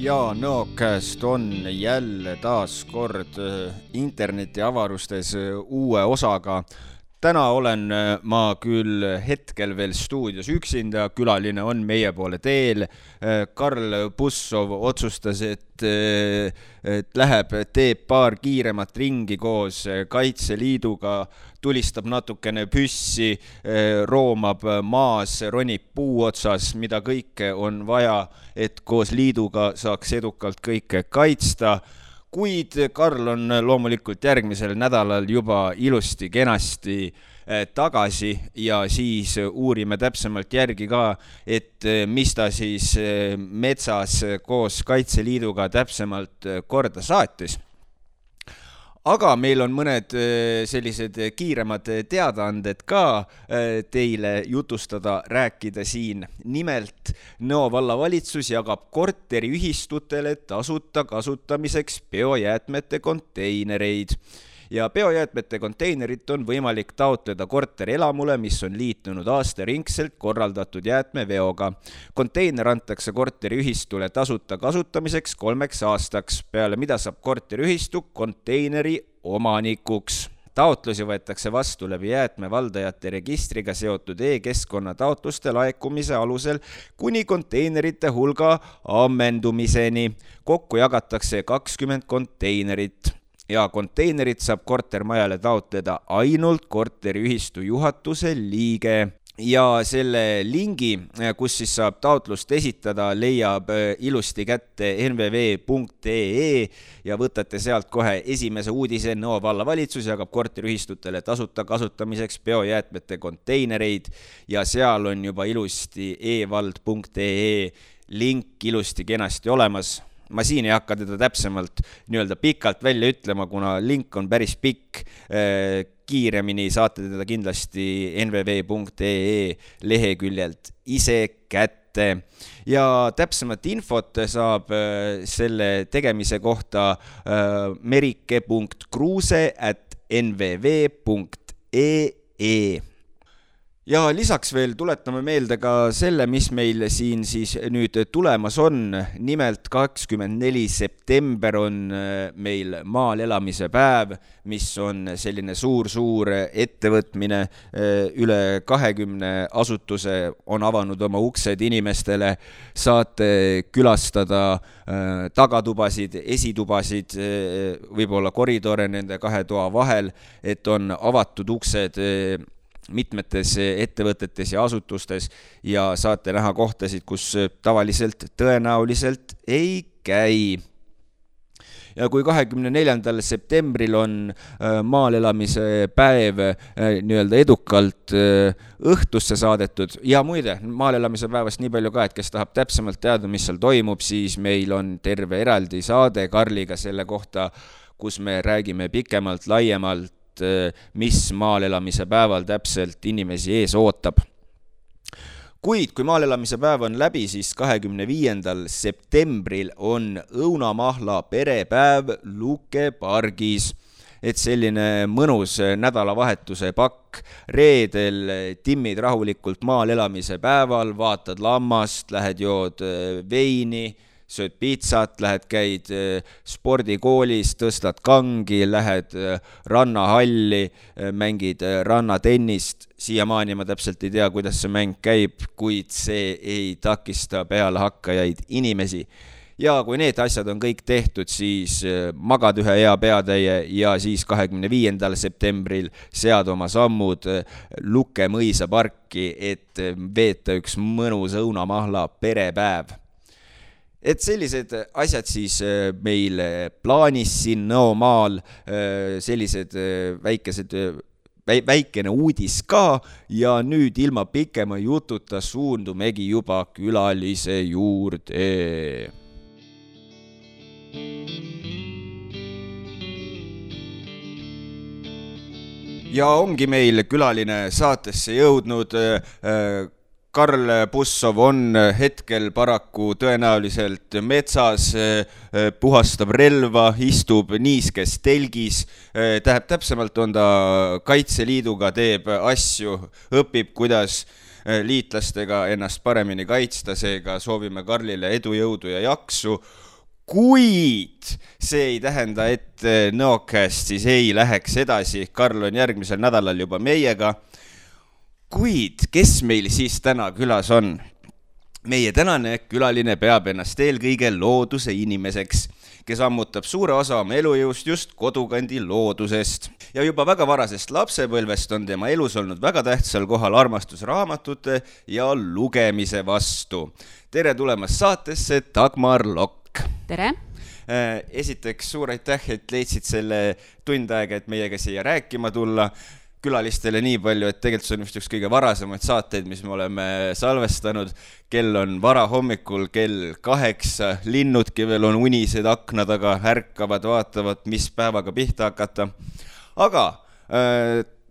Ja Nõokäest on jälle taas kord interneti avarustes uue osaga. Täna olen ma küll hetkel veel stuudios üksinda, külaline on meie poole teel. Karl Bussov otsustas, et teeb paar kiiremat ringi koos Kaitseliiduga, tulistab natukene püssi, roomab maas, ronib puu otsas, mida kõike on vaja, et koos liiduga saaks edukalt kõike kaitsta. Kuid Karl on loomulikult järgmisel nädalal juba ilusti kenasti tagasi ja siis uurime täpsemalt järgi ka, et mis ta siis metsas koos Kaitseliiduga täpsemalt korda saatis. Aga meil on mõned sellised kiiremad teadaanded ka teile jutustada, rääkida siin. Nimelt, Nõo vallavalitsus jagab korteriühistutele tasuta kasutamiseks biojäätmete konteinereid. Ja biojäätmete konteinerit on võimalik taotleda korterelamule, mis on liitunud aastaringselt korraldatud jäätmeveoga. Konteiner antakse korteriühistule tasuta kasutamiseks 3 aastaks, peale mida saab korteriühistu konteineri omanikuks. Taotlusi võetakse vastu läbi jäätmevaldajate registriga seotud e-keskkonna taotluste laekumise alusel kuni konteinerite hulga ammendumiseni. Kokku jagatakse 20 konteinerit. Ja konteinerit saab kortermajale taotleda ainult korteriühistu juhatuse liige. Ja selle lingi, kus siis saab taotlust esitada, leiab ilusti kätte nvv.ee ja võtate sealt kohe esimese uudise. Nõo vallavalitsus jagab korteriühistutele tasuta kasutamiseks biojäätmete konteinereid ja seal on juba ilusti evald.ee link ilusti kenasti olemas. Ma siin ei hakka teda täpsemalt pikalt välja ütlema, kuna link on päris pikk. Kiiremini saate teda kindlasti nvv.ee leheküljelt ise kätte. Ja täpsemat infot saab selle tegemise kohta merike.kruuse@nvv.ee. Ja lisaks veel tuletame meelde ka selle, mis meil siin siis nüüd tulemas on. Nimelt 24. september on meil maal elamise päev, mis on selline suur ettevõtmine. Üle 20 asutuse on avanud oma uksed inimestele. Saate külastada tagatubasid, esitubasid, võib-olla koridore nende 2 toa vahel, et on avatud uksed mitmetes ettevõtetes ja asutustes ja saate näha kohtasid, kus tavaliselt tõenäoliselt ei käi. Ja kui 24. septembril on maal elamise päev edukalt õhtusse saadetud ja muide, maal elamise päevast nii palju ka, et kes tahab täpsemalt teada, mis seal toimub, siis meil on terve eraldi saade Karliga selle kohta, kus me räägime pikemalt, laiemalt, mis maal elamise päeval täpselt inimesi ees ootab. Kuid kui maal elamise päev on läbi, siis 25. septembril on õunamahla perepäev Luke pargis. Et selline mõnus nädalavahetuse pakk. Reedel timmid rahulikult maal elamise päeval, vaatad lammast, lähed jood veini, sööd pizzat, lähed käid spordikoolis, tõstad kangi, lähed rannahalli, mängid rannatennist. Siiamaani ma täpselt ei tea, kuidas see mäng käib, kuid see ei takista peale hakkajaid inimesi. Ja kui need asjad on kõik tehtud, siis magad ühe hea peatäie ja siis 25. septembril sead oma sammud Luke mõisa parki, et veeta üks mõnus õunamahla perepäev. Et sellised asjad siis meil plaanis siin Nõomaal, sellised väikene uudis ka ja nüüd ilma pikema jututa suundumegi juba külalise juurde. Ja ongi meil külaline saatesse jõudnud. Karl Bussov on hetkel paraku tõenäoliselt metsas, puhastab relva, istub niiskes telgis. Täpsemalt on ta Kaitseliiduga, teeb asju, õpib, kuidas liitlastega ennast paremini kaitsta, seega soovime Karlile edu, jõudu ja jaksu. kuid see ei tähenda, et Nõokast siis ei läheks edasi. Karl on järgmisel nädalal juba meiega. Kuid kes meil siis täna külas on? Meie tänane külaline peab ennast eelkõige looduse inimeseks, kes ammutab suure osa oma elujõust just kodukandi loodusest. Ja juba väga varasest lapsepõlvest on tema elus olnud väga tähtsal kohal armastus raamatute ja lugemise vastu. Tere tulemast saatesse, Dagmar Lokk. Tere! Esiteks suur aitäh, et leidsid selle tund aega, et meiega siia rääkima tulla. Külalistele nii palju, et tegelikult see on vist üks kõige varasemaid saateid, mis me oleme salvestanud. Kell on vara hommikul, kell 8, linnudki veel on unised akna taga, ärkavad, vaatavad, mis päevaga pihta hakata. Aga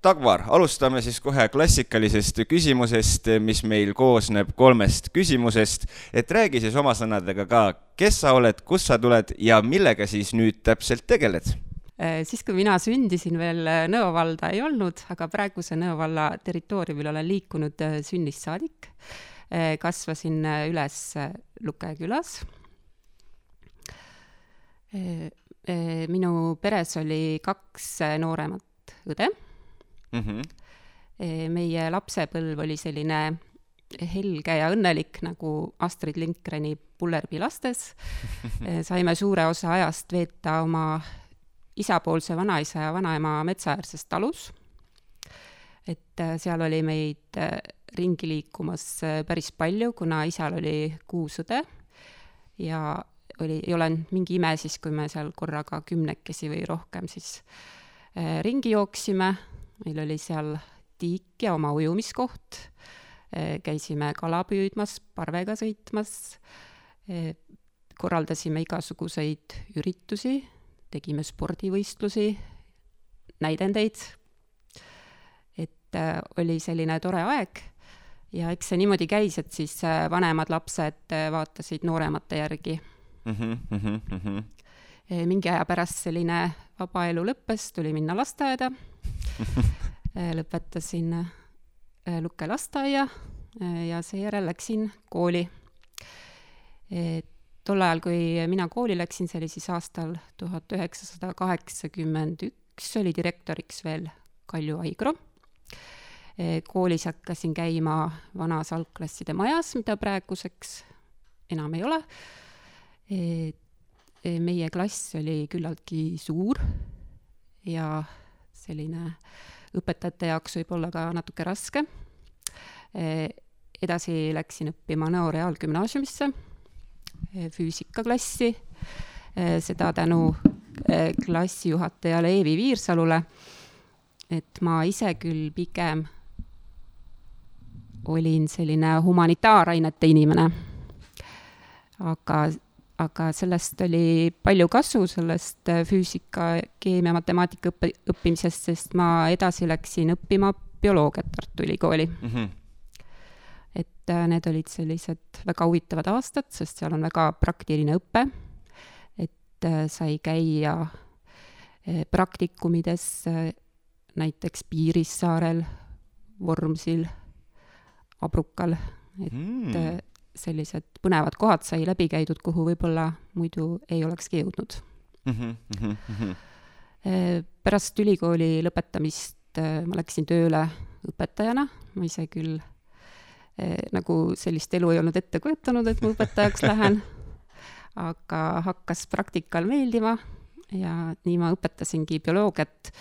Dagmar, alustame siis kohe klassikalisest küsimusest, mis meil koosneb 3 küsimusest. Et räägi siis oma sõnadega ka, kes sa oled, kus sa tuled ja millega siis nüüd täpselt tegeled? Siis kui mina sündisin veel Nõo valda ei olnud, aga praeguse Nõo valla territooriumil olen liikunud sünnist saadik. Kasvasin üles Luke külas. Minu peres oli 2 nooremat õde. Meie lapsepõlv oli selline helge ja õnnelik nagu Astrid Lindgreni Pullerbi lastes. Saime suure osa ajast veeta oma isapoolse vanaisa ja vanaema metsaäärses talus. Et seal oli meid ringi liikumas päris palju, kuna isal oli 6 õde ja ei ole mingi ime siis, kui me seal korraga 10 või rohkem siis ringi jooksime. Meil oli seal tiik ja oma ujumiskoht. Käisime kala püüdmas, parvega sõitmas. Korraldasime igasuguseid üritusi. Tegime spordivõistlusi, näidendeid, et oli selline tore aeg ja eks see niimoodi käis, et siis vanemad lapsed vaatasid nooremate järgi. Mingi aja pärast selline vaba elu lõppes, tuli minna lasteaeda, lõpetasin Luke lasteaia ja seejärel läksin kooli. Tol ajal, kui mina kooli läksin, see oli siis aastal 1981, oli direktoriks veel Kalju Aigro. Koolis hakkasin käima vanas algklasside majas, mida praeguseks enam ei ole. Meie klass oli küllaltki suur ja selline õpetajate jaoks võib olla ka natuke raske. Edasi läksin õppima Nõo reaalgümnaasiumisse, füüsikaklassi, seda tänu klassijuhatajale Eevi Viirsalule, et ma ise küll pigem olin selline humanitaarainete inimene, aga sellest oli palju kasu, sellest füüsika, keemia, matemaatika õppimisest, sest ma edasi läksin õppima bioloogiat Tartu Ülikooli. Et need olid sellised väga huvitavad aastad, sest seal on väga praktiline õpe, et sai käia praktikumides näiteks Piirissaarel, Vormsil, Abrukal, et sellised põnevad kohad sai läbi käidud, kuhu võib-olla muidu ei olekski jõudnud. Pärast ülikooli lõpetamist ma läksin tööle õpetajana, ma ise küll nagu sellist elu ei olnud ette kujutanud, et ma õpetajaks lähen, aga hakkas praktikal meeldima ja nii ma õpetasingi bioloogiat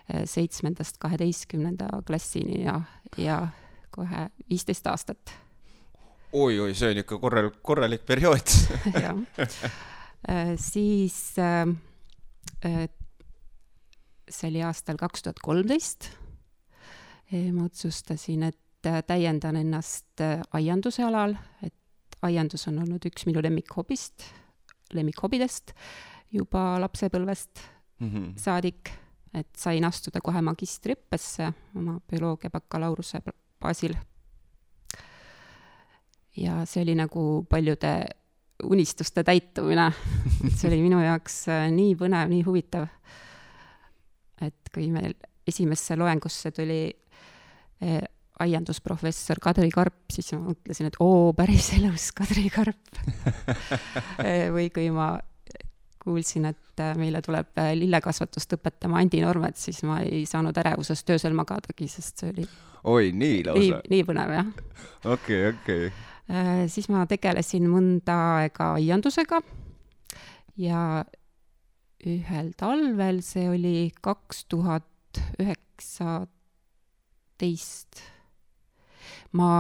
7.–12. klassini ja kohe 15 aastat. Oi, see on ikka korralik periood. Siis see oli aastal 2013. Ma otsustasin, et täiendan ennast aianduse alal, et aiandus on olnud üks minu lemmikhobidest juba lapsepõlvest saadik, et sain astuda kohe magistriõppesse oma bioloogia bakalaureuse baasil. Ja see oli nagu paljude unistuste täitumine. See oli minu jaoks nii põnev, nii huvitav, et kui meil esimesse loengusse tuli aiandusprofessor Kadri Karp, siis ma mõtlesin, et päris elus Kadri Karp. Või kui ma kuulsin, et meile tuleb lillekasvatust õpetama Andi Normet, siis ma ei saanud ärevusest öösel magadagi, sest see oli Oi, nii lausa. Nii põnev, jah. Okei. Siis ma tegelesin mõnda aega aiandusega ja ühel talvel, see oli 2019, ma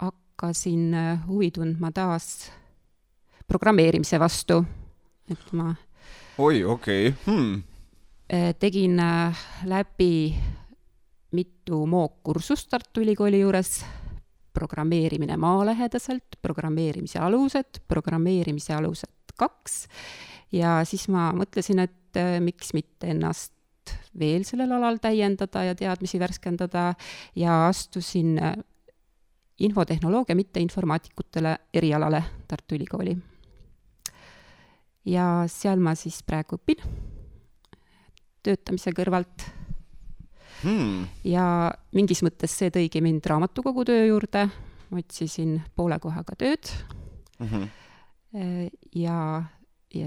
hakkasin huvi tundma taas programmeerimise vastu, et ma okei. Tegin läbi mitu mookkursust Tartu Ülikooli juures, programmeerimine maalähedaselt, programmeerimise alused 2 ja siis ma mõtlesin, et miks mitte ennast veel sellel alal täiendada ja teadmisi värskendada ja astusin infotehnoloogia mitte informaatikutele erialale Tartu Ülikooli. Ja seal ma siis praegu õpin töötamise kõrvalt. Ja mingis mõttes see tõigi mind raamatukogu töö juurde, ma otsisin poole kohaga tööd ja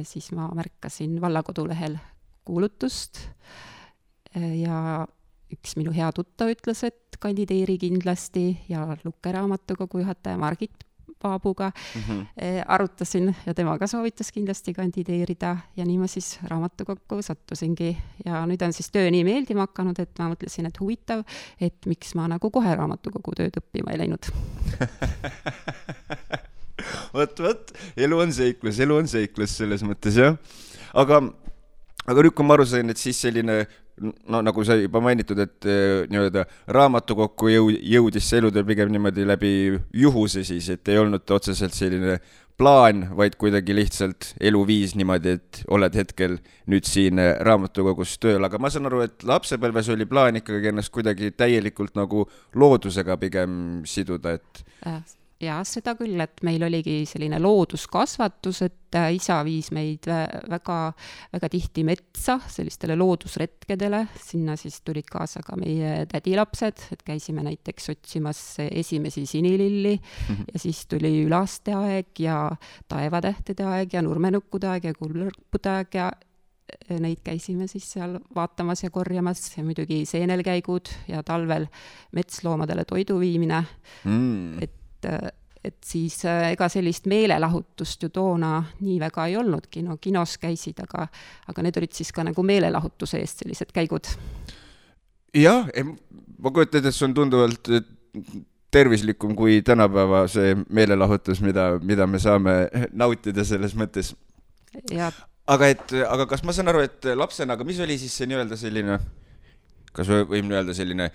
siis ma märkasin vallakodulehel kuulutust ja üks minu hea tuttav ütles, et kandideeri kindlasti ja Lukke raamatukogu juhataja Margit Paabuga arutasin ja tema ka soovitas kindlasti kandideerida ja nii ma siis raamatukokku sattusingi ja nüüd on siis töö nii meeldima hakanud, et ma mõtlesin, et huvitav, et miks ma nagu kohe raamatukogu tööd õppima ei läinud. Võt, elu on seiklus selles mõttes, jah. Aga nüüd, kui ma aru sain, et siis selline nagu sa juba mainitud, et nii-öelda raamatukokku jõudis see elutöö pigem niimoodi läbi juhuse siis, et ei olnud otseselt selline plaan, vaid kuidagi lihtsalt eluviis niimoodi, et oled hetkel nüüd siin raamatukogus tööl. Aga ma saan aru, et lapsepõlves oli plaan ikkagi ennast kuidagi täielikult nagu loodusega pigem siduda, et... Ja seda küll, et meil oligi selline looduskasvatus, et isa viis meid väga, väga tihti metsa sellistele loodusretkedele, sinna siis tulid kaasa ka meie tädilapsed, et käisime näiteks otsimas esimesi sinililli ja siis tuli ülaste aeg ja taevatähtede aeg ja nurmenukkude aeg ja kullõrpude aeg ja neid käisime siis seal vaatamas ja korjamas ja muidugi seenelkäigud ja talvel metsloomadele toidu viimine, et siis ega sellist meelelahutust ju toona nii väga ei olnudki, no kinos käisid, aga need olid siis ka nagu meelelahutuse eest sellised käigud. Jah, ma kujutan, et see on tunduvalt tervislikum kui tänapäeva see meelelahutus, mida me saame nautida selles mõttes. Ja. Aga kas ma saan aru, et lapsena, aga mis oli siis see nii-öelda selline... Kas võim öelda selline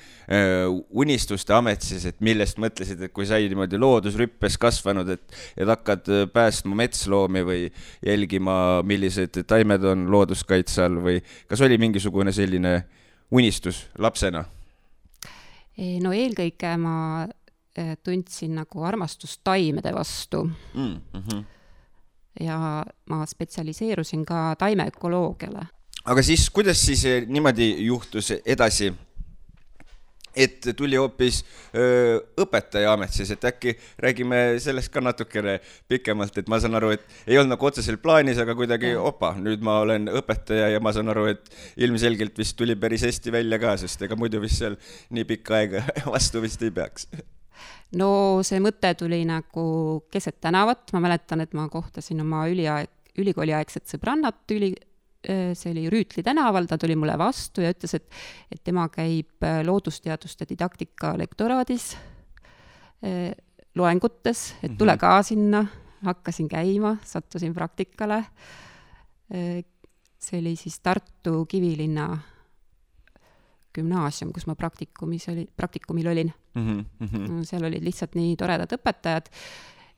unistuste amet siis, et millest mõtlesid, et kui sai niimoodi loodusrüppes kasvanud, et hakkad päästma metsloomi või jälgima, millised taimed on looduskaitse all või kas oli mingisugune selline unistus lapsena? No eelkõige ma tundsin nagu armastust taimede vastu. Ja ma spetsialiseerusin ka taimeökoloogiale. Aga siis, kuidas siis niimoodi juhtus edasi, et tuli hoopis õpetaja amet siis, et äkki räägime sellest ka natukene pikemalt, et ma saan aru, et ei olnud nagu otseselt plaanis, aga kuidagi nüüd ma olen õpetaja ja ma saan aru, et ilmselgelt vist tuli päris hästi välja ka, sest ega muidu vist seal nii pikka aega vastu vist ei peaks. No see mõte tuli nagu keset tänavat, ma mäletan, et ma kohtasin oma ülikooliaegset sõbrannat see oli Rüütli tänaval, ta tuli mulle vastu ja ütles, et tema käib loodusteaduste didaktika lektoraadis loengutes, et tule ka sinna, hakkasin käima, sattusin praktikale. See oli siis Tartu Kivilinna gümnaasium, kus ma praktikumil olin. Seal olid lihtsalt nii toredad õpetajad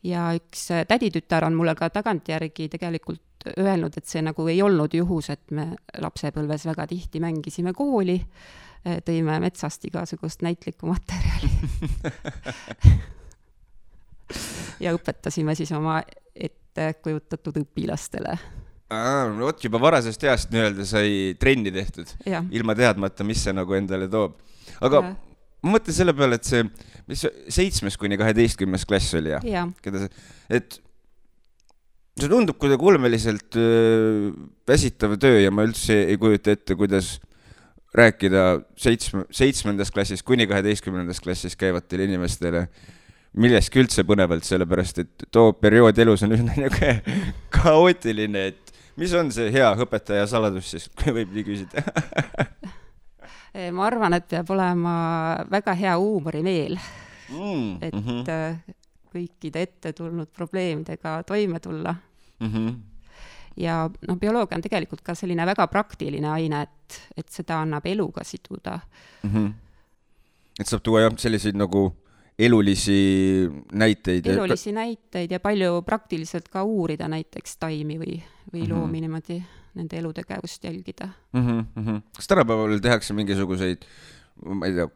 ja üks täditütar on mulle ka tagantjärgi tegelikult öelnud, et see nagu ei olnud juhus, et me lapsepõlves väga tihti mängisime kooli, tõime metsast igasugust näitlikku materjali ja õpetasime siis oma ettekujutatud õpilastele. Oot, juba varasest east nii-öelda sai trenni tehtud, ilma teadmata, mis see nagu endale toob. Aga ma mõtlen selle peale, et see, mis 7. kuni 12. klass oli, et see tundub kuidagi ulmeliselt väsitav töö ja ma üldse ei kujuta ette, kuidas rääkida 7. klassis kuni 12. klassis käivatele inimestele milleski üldse põnevalt, sellepärast et too periood elus on üsna kaootiline, et mis on see hea õpetaja saladus siis, kui võib nii küsida? Ma arvan, et peab olema väga hea huumorimeel, et kõikide ette tulnud probleemidega toime tulla. Ja bioloogia on tegelikult ka selline väga praktiline aine, et seda annab eluga siduda. Et saab tuua jah selliseid nagu elulisi näiteid ja palju praktiliselt ka uurida näiteks taimi või loomi niimoodi nende elutegevust jälgida. Kas tänapäeval tehakse mingisuguseid, ma ei tea,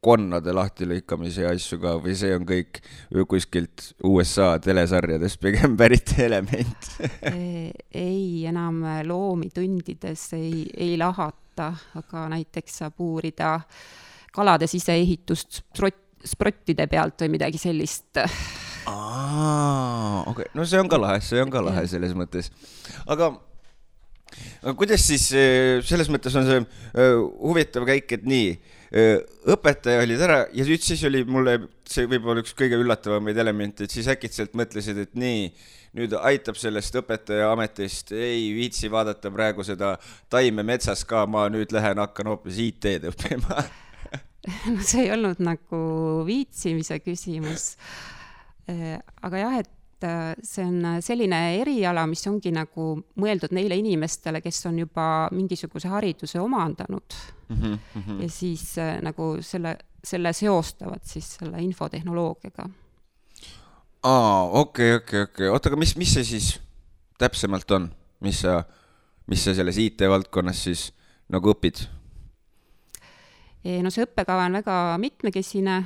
konnade lahtilõikamise asju ka või see on kõik kuskilt USA telesarjades pigem pärit element? Ei, enam loomi tundides ei lahata, aga näiteks saab uurida kalade siseehitust sprottide pealt või midagi sellist. Okay. No see on ka lahe selles mõttes. Aga kuidas siis, selles mõttes on see huvitav käik, et nii, õpetaja olid ära ja siis oli mulle, see võib-olla üks kõige üllatavamaid elemente, et siis äkitselt mõtlesid, et nii, nüüd aitab sellest õpetaja ametist, ei viitsi vaadata praegu seda taime metsas ka, ma nüüd hakkan hoopis IT-d õppima. No see ei olnud nagu viitsimise küsimus, aga jah, et see on selline eriala, mis ongi nagu mõeldud neile inimestele, kes on juba mingisuguse hariduse omandanud ja siis nagu selle seostavad siis selle infotehnoloogiaga. Okei. Oota, aga mis see siis täpsemalt on? Mis sa selles IT-valdkonnas siis nagu õpid? No see õppekava on väga mitmekesine,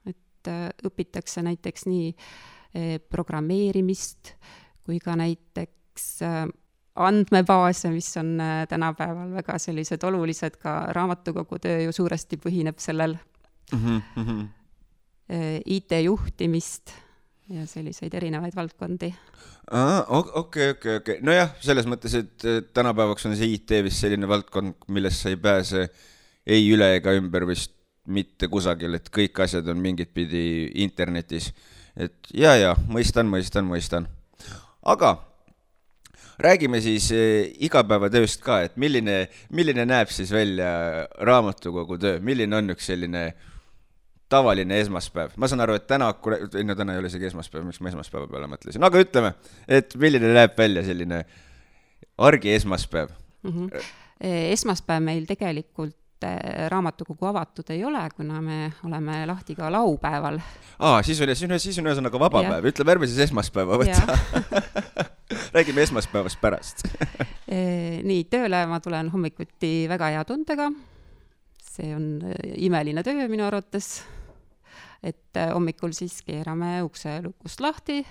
et õpitakse näiteks nii programmeerimist kui ka näiteks andmebaase, mis on tänapäeval väga sellised olulised, ka raamatukogu töö ju suuresti põhineb sellel IT-juhtimist ja selliseid erinevaid valdkondi. Okei. Nojah, selles mõttes, et tänapäevaks on see IT vist selline valdkond, millest sa ei pääse ei üle ega ümber vist mitte kusagil, et kõik asjad on mingit pidi internetis. Et ja, mõistan. Aga räägime siis igapäevatööst ka, et milline näeb siis välja raamatukogu töö, milline on üks selline tavaline esmaspäev? Ma saan aru, et täna ei ole isegi esmaspäev, miks ma esmaspäeva peale mõtlesin, aga ütleme, et milline näeb välja selline argi esmaspäev? Esmaspäev meil tegelikult raamatukogu avatud ei ole, kuna me oleme lahti ka laupäeval. Siis on ühesõnaga vaba päev. Ütleme, ärme siis esmaspäeva võtta. Räägime esmaspäevast pärast. Nii, tööle ma tulen hommikuti väga hea tundega. See on imeline töö minu arvates. Et hommikul siis keerame ukse lukust lahti,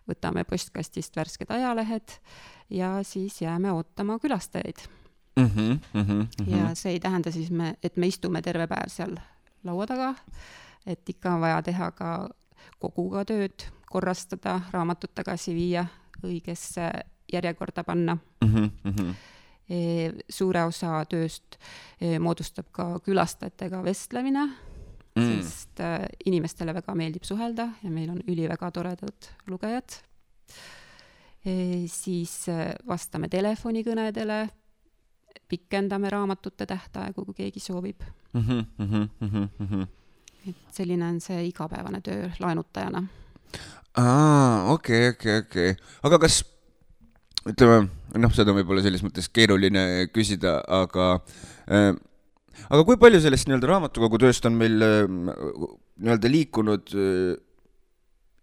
võtame postkastist värsked ajalehed ja siis jääme ootama külastajaid. Ja see ei tähenda siis, et me istume terve päev seal laua taga, et ikka on vaja teha ka koguga tööd, korrastada, raamatut tagasi viia, õigesse järjekorda panna. Suure osa tööst moodustab ka külastajatega vestlemine, sest inimestele väga meeldib suhelda ja meil on väga toredad lugejad. Siis vastame telefonikõnedele, pikendame raamatute tähtaegu, kui keegi soovib. Et selline on see igapäevane töö laenutajana. Okei. Aga kas, ütleme, seda võib-olla selles mõttes keeruline küsida, aga kui palju sellest raamatukogu tööst on meil liikunud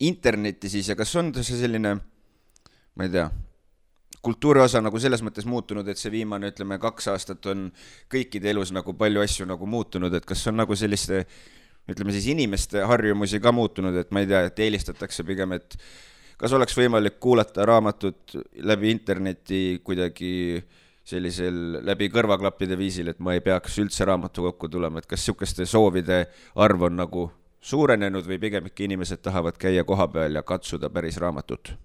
interneti siis ja kas on see selline, ma ei tea, kultuuri osa nagu selles mõttes muutunud, et see viimane, 2 aastat on kõikide elus nagu palju asju nagu muutunud, et kas on nagu selliste, ütleme siis inimeste harjumusi ka muutunud, et ma ei tea, et eelistatakse pigem, et kas oleks võimalik kuulata raamatut läbi interneti kuidagi sellisel läbi kõrvaklappide viisil, et ma ei peaks üldse raamatukokku tulema, et kas sihukeste soovide arv on nagu suurenenud või pigem ikka inimesed tahavad käia koha peal ja katsuda päris raamatut?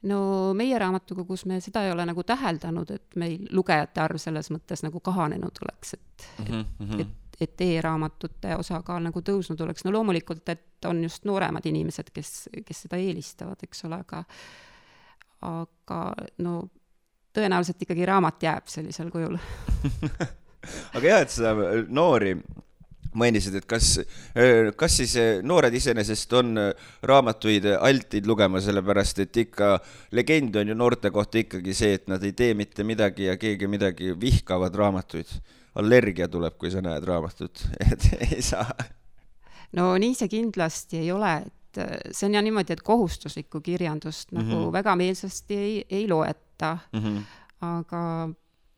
no meie raamatukogus me seda ei ole nagu täheldanud, et meil lugejate arv selles mõttes nagu kahanenud oleks, et e-raamatute osakaal nagu tõusnud oleks. No loomulikult, et on just nooremad inimesed, kes seda eelistavad, eks ole, aga no tõenäoliselt ikkagi raamat jääb sellisel kujul. Aga jah, et sa noori mainisid, et kas siis noored iseenesest on raamatuid altid lugema, sellepärast et ikka legend on ju noorte kohta ikkagi see, et nad ei tee mitte midagi ja keegi midagi vihkavad raamatuid. Allergia tuleb, kui sa näed raamatut, et ei saa. No nii see kindlasti ei ole, et see on ja niimoodi, et kohustuslikku kirjandust nagu väga meelsasti ei loeta, aga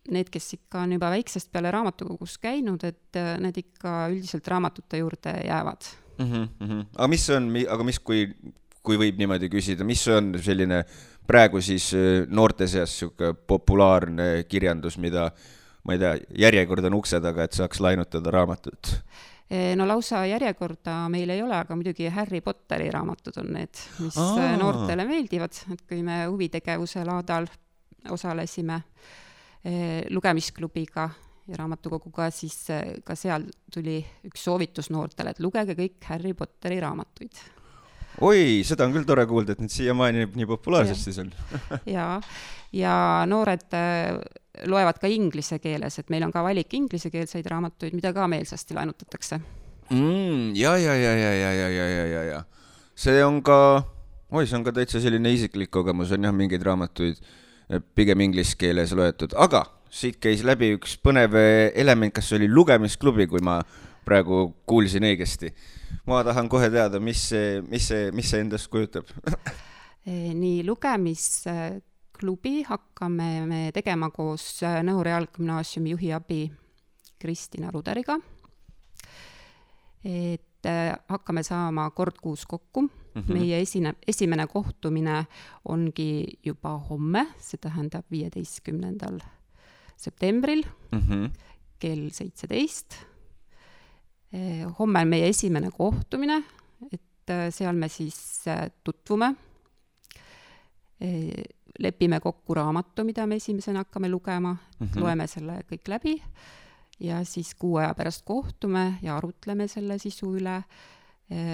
need, kes ikka on juba väiksest peale raamatukogus käinud, et need ikka üldiselt raamatute juurde jäävad. Aga mis, kui võib niimoodi küsida, mis on selline praegu siis noorte seas populaarne kirjandus, mida, ma ei tea, järjekord on ukse taga, et saaks lainutada raamatut? No lausa järjekorda meil ei ole, aga muidugi Harry Potteri raamatud on need, mis noortele meeldivad, et kui me huvitegevuse laadal osalesime lugemisklubiga ja raamatukoguga, siis ka seal tuli üks soovitus noortele, et lugege kõik Harry Potteri raamatuid. Oi, seda on küll tore kuulda, et need siiamaani nii populaarsed siis on. ja noored loevad ka inglise keeles, et meil on ka valik inglisekeelseid raamatuid, mida ka meelsasti lainutatakse. Ja. See on ka täitsa selline isiklik kogemus, on jah mingeid raamatuid pigem inglise keeles loetud, aga siit käis läbi üks põnev element, kas oli lugemisklubi, kui ma praegu kuulsin õigesti. Ma tahan kohe teada, mis see endast kujutab. Nii, lugemisklubi hakkame me tegema koos Nõo Reaalgümnaasiumi juhi abi Kristina Ruderiga. Et hakkame saama kord kuus kokku. Meie esimene kohtumine ongi juba homme, see tähendab 15. septembril kell 17. Homme on meie esimene kohtumine, et seal me siis tutvume, lepime kokku raamatu, mida me esimesena hakkame lugema, loeme selle kõik läbi ja siis 6 aja pärast kohtume ja arutleme selle sisu üle,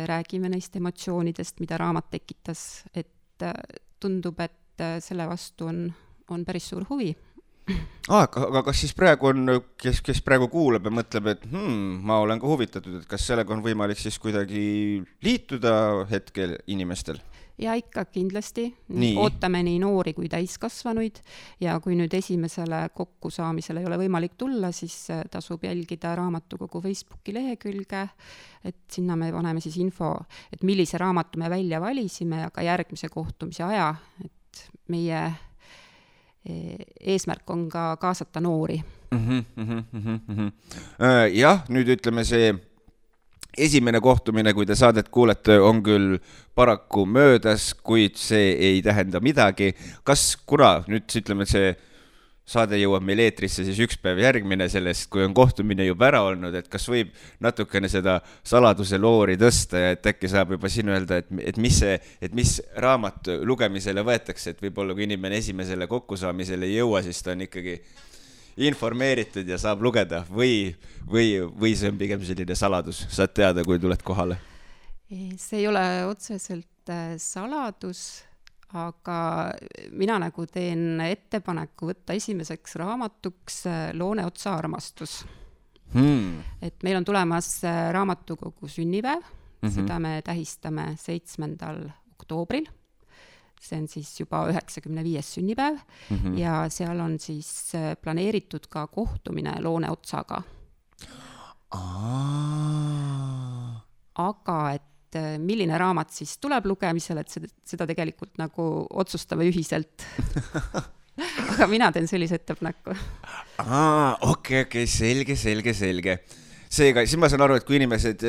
räägime neist emotsioonidest, mida raamat tekitas, et tundub, et selle vastu on päris suur huvi. Aga kas siis praegu on, kes praegu kuulab ja mõtleb, et ma olen ka huvitatud, et kas sellega on võimalik siis kuidagi liituda hetkel inimestel? Ja ikka kindlasti. Ootame nii noori kui täiskasvanuid ja kui nüüd esimesele kokkusaamisele ei ole võimalik tulla, siis tasub jälgida raamatukogu Facebooki lehekülge, et sinna me paneme siis info, et millise raamatu me välja valisime ja ka järgmise kohtumise aja, et meie eesmärk on ka kaasata noori. Jah, nüüd ütleme see esimene kohtumine, kui te saadet kuulete, on küll paraku möödas, kuid see ei tähenda midagi. Kuna nüüd ütleme, et see saade jõuab meil eetrisse siis üks päev järgmine sellest, kui on kohtumine juba ära olnud, et kas võib natukene seda saladuse loori tõsta ja et äkki saab juba siin öelda, et mis raamat lugemisele võetakse, et võib-olla kui inimene esimesele kokkusaamisele ei jõua, siis ta on ikkagi informeeritud ja saab lugeda või see on pigem selline saladus, saad teada, kui tuled kohale? See ei ole otseselt saladus, aga mina nagu teen ettepaneku võtta esimeseks raamatuks Looneotsa armastus. Et meil on tulemas raamatukogu sünnipäev, seda me tähistame 7. oktoobril. See on siis juba 95. sünnipäev ja seal on siis planeeritud ka kohtumine Looneotsaga. Aga et milline raamat siis tuleb lugemisele, et seda tegelikult nagu otsustame ühiselt. Aga mina teen sellise ettepaneku. Okei, selge. Seega, siis ma saan aru, et kui inimesed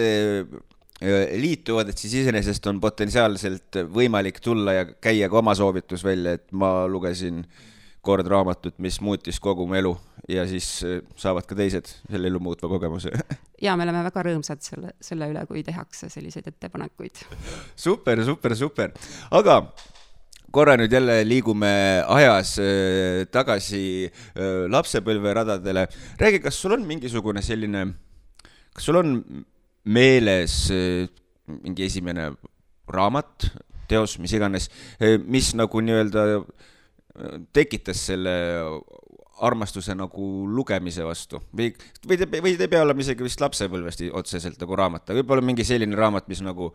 liituvad, et siis iseenesest on potentsiaalselt võimalik tulla ja käia ka oma soovitus välja, et ma lugesin kord raamatut, mis muutis kogu mu elu ja siis saavad ka teised selle elu muutva kogemuse. Ja me oleme väga rõõmsad selle üle, kui tehakse selliseid ettepanekuid. Super. Aga korra nüüd jälle liigume ajas tagasi lapsepõlveradadele. Räägi, kas sul on mingisugune selline, kas sul on meeles mingi esimene raamat, teos, mis iganes, mis nagu nii-öelda tekitas selle armastuse nagu lugemise vastu? Või ei pea olema isegi vist lapsepõlvest otseselt nagu raamat, aga võib-olla mingi selline raamat, mis nagu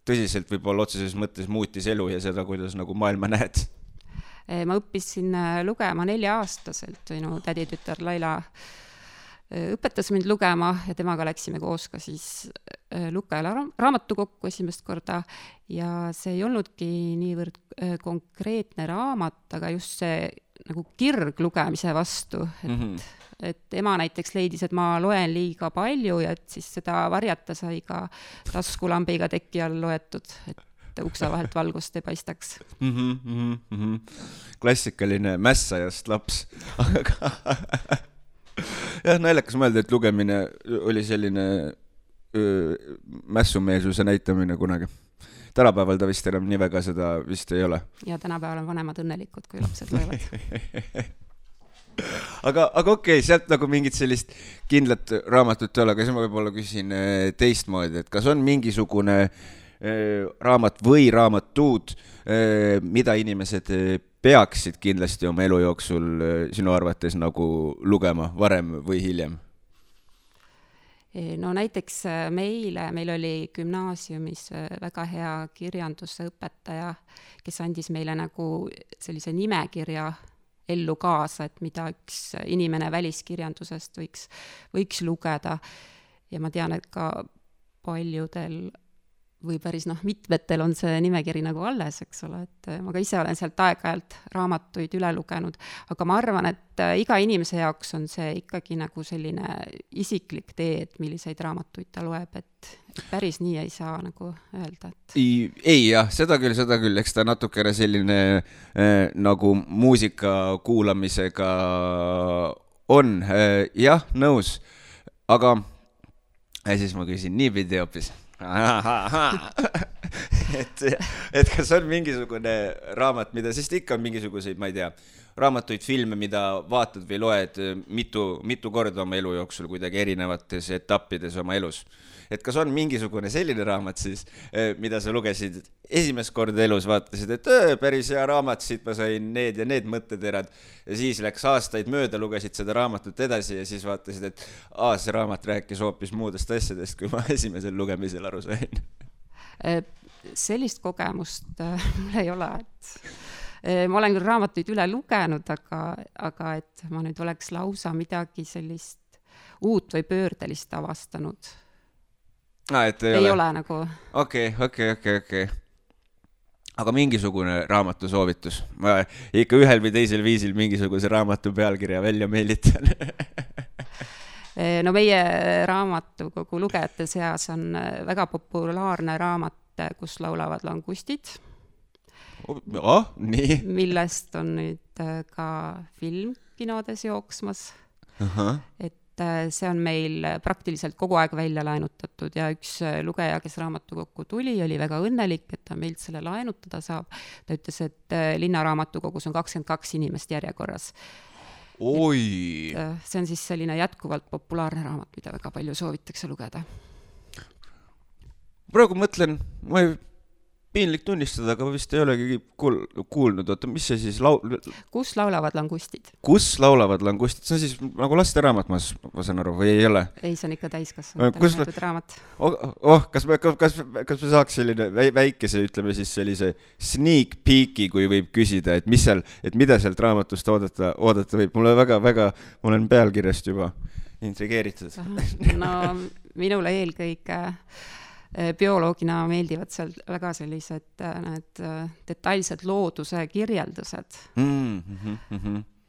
tõsiselt võib-olla otseses mõttes muutis elu ja seda, kuidas nagu maailma näed? Ma õppisin lugema 4-aastaselt, minu täditütar Laila õpetas mind lugema ja temaga läksime koos ka siis Lukajala raamatukokku esimest korda ja see ei olnudki niivõrd konkreetne raamat, aga just see nagu kirg lugemise vastu, et ema näiteks leidis, et ma loen liiga palju ja et siis seda varjata sai ka taskulambiga teki all loetud, et ukse vahelt valgust ei paistaks. Klassikaline mässajast laps. Jah, naljakas mõelda, et lugemine oli selline mässumeelsuse näitamine kunagi. Tänapäeval ta vist enam nii väga seda vist ei ole. Ja tänapäeval on vanemad õnnelikud, kui lapsed loevad. aga okei, sealt nagu mingit sellist kindlat raamatut ei ole, aga siis ma võib-olla küsin teistmoodi, et kas on mingisugune raamat või raamatud, mida inimesed peaksid kindlasti oma elu jooksul sinu arvates nagu lugema varem või hiljem? No näiteks meil oli gümnaasiumis väga hea kirjanduse õpetaja, kes andis meile nagu sellise nimekirja ellu kaasa, et mida üks inimene väliskirjandusest võiks lugeda. Ja ma tean, et ka paljudel või päris mitmetel on see nimekiri nagu alles, eks ole, et ma ka ise olen sealt aeg-ajalt raamatuid üle lugenud, aga ma arvan, et iga inimese jaoks on see ikkagi nagu selline isiklik tee, et milliseid raamatuid ta loeb, et päris nii ei saa nagu öelda. Et... Ei jah, seda küll, eks ta natukene selline nagu muusika kuulamisega on, jah, nõus, aga siis ma küsin niipidi hoopis. et kas on mingisugune raamat, mida, sest ikka on mingisuguseid, ma ei tea, raamatuid, filme, mida vaatad või loed mitu korda oma elu jooksul kuidagi erinevates etappides oma elus. Et kas on mingisugune selline raamat siis, mida sa lugesid esimest korda elus, vaatasid, et päris hea raamat, siit ma sain need ja need mõtteterad ja siis läks aastaid mööda, lugesid seda raamatut edasi ja siis vaatasid, et see raamat rääkis hoopis muudest asjadest, kui ma esimesel lugemisel aru sain. Sellist kogemust mul ei ole, et ma olen küll raamatuid üle lugenud, aga et ma nüüd oleks lausa midagi sellist uut või pöördelist avastanud. Ei ole nagu. Okei. Aga mingisugune raamatu soovitus? Ma ikka ühel või teisel viisil mingisuguse raamatu pealkirja välja meelitan. No meie raamatukogu lugejate seas on väga populaarne raamat, kus laulavad langustid. Nii. Millest on nüüd ka film kinodes jooksmas. Et see on meil praktiliselt kogu aeg välja laenutatud ja üks lugeja, kes raamatukokku tuli, oli väga õnnelik, et ta meilt selle laenutada saab. Ta ütles, et linnaraamatukogus on 22 inimest järjekorras. Oi! See on siis selline jätkuvalt populaarne raamat, mida väga palju soovitakse lugeda. Praegu mõtlen, ma ei piinlik tunnistada, aga vist ei olegi kuulnud. Oota, mis see siis Kus laulavad langustid? Kus laulavad langustid? See on siis nagu lasteraamat, ma saan aru, või ei ole? Ei, see on ikka täiskasvanud raamat. Kas me saaks selline väikese, ütleme siis sellise sneak peeki, kui võib küsida, et mida sealt raamatust oodata võib? Mulle väga, ma olen pealkirjast juba intrigeeritud. No, minule eelkõige bioloogina meeldivad seal väga sellised need detailsed looduse kirjeldused.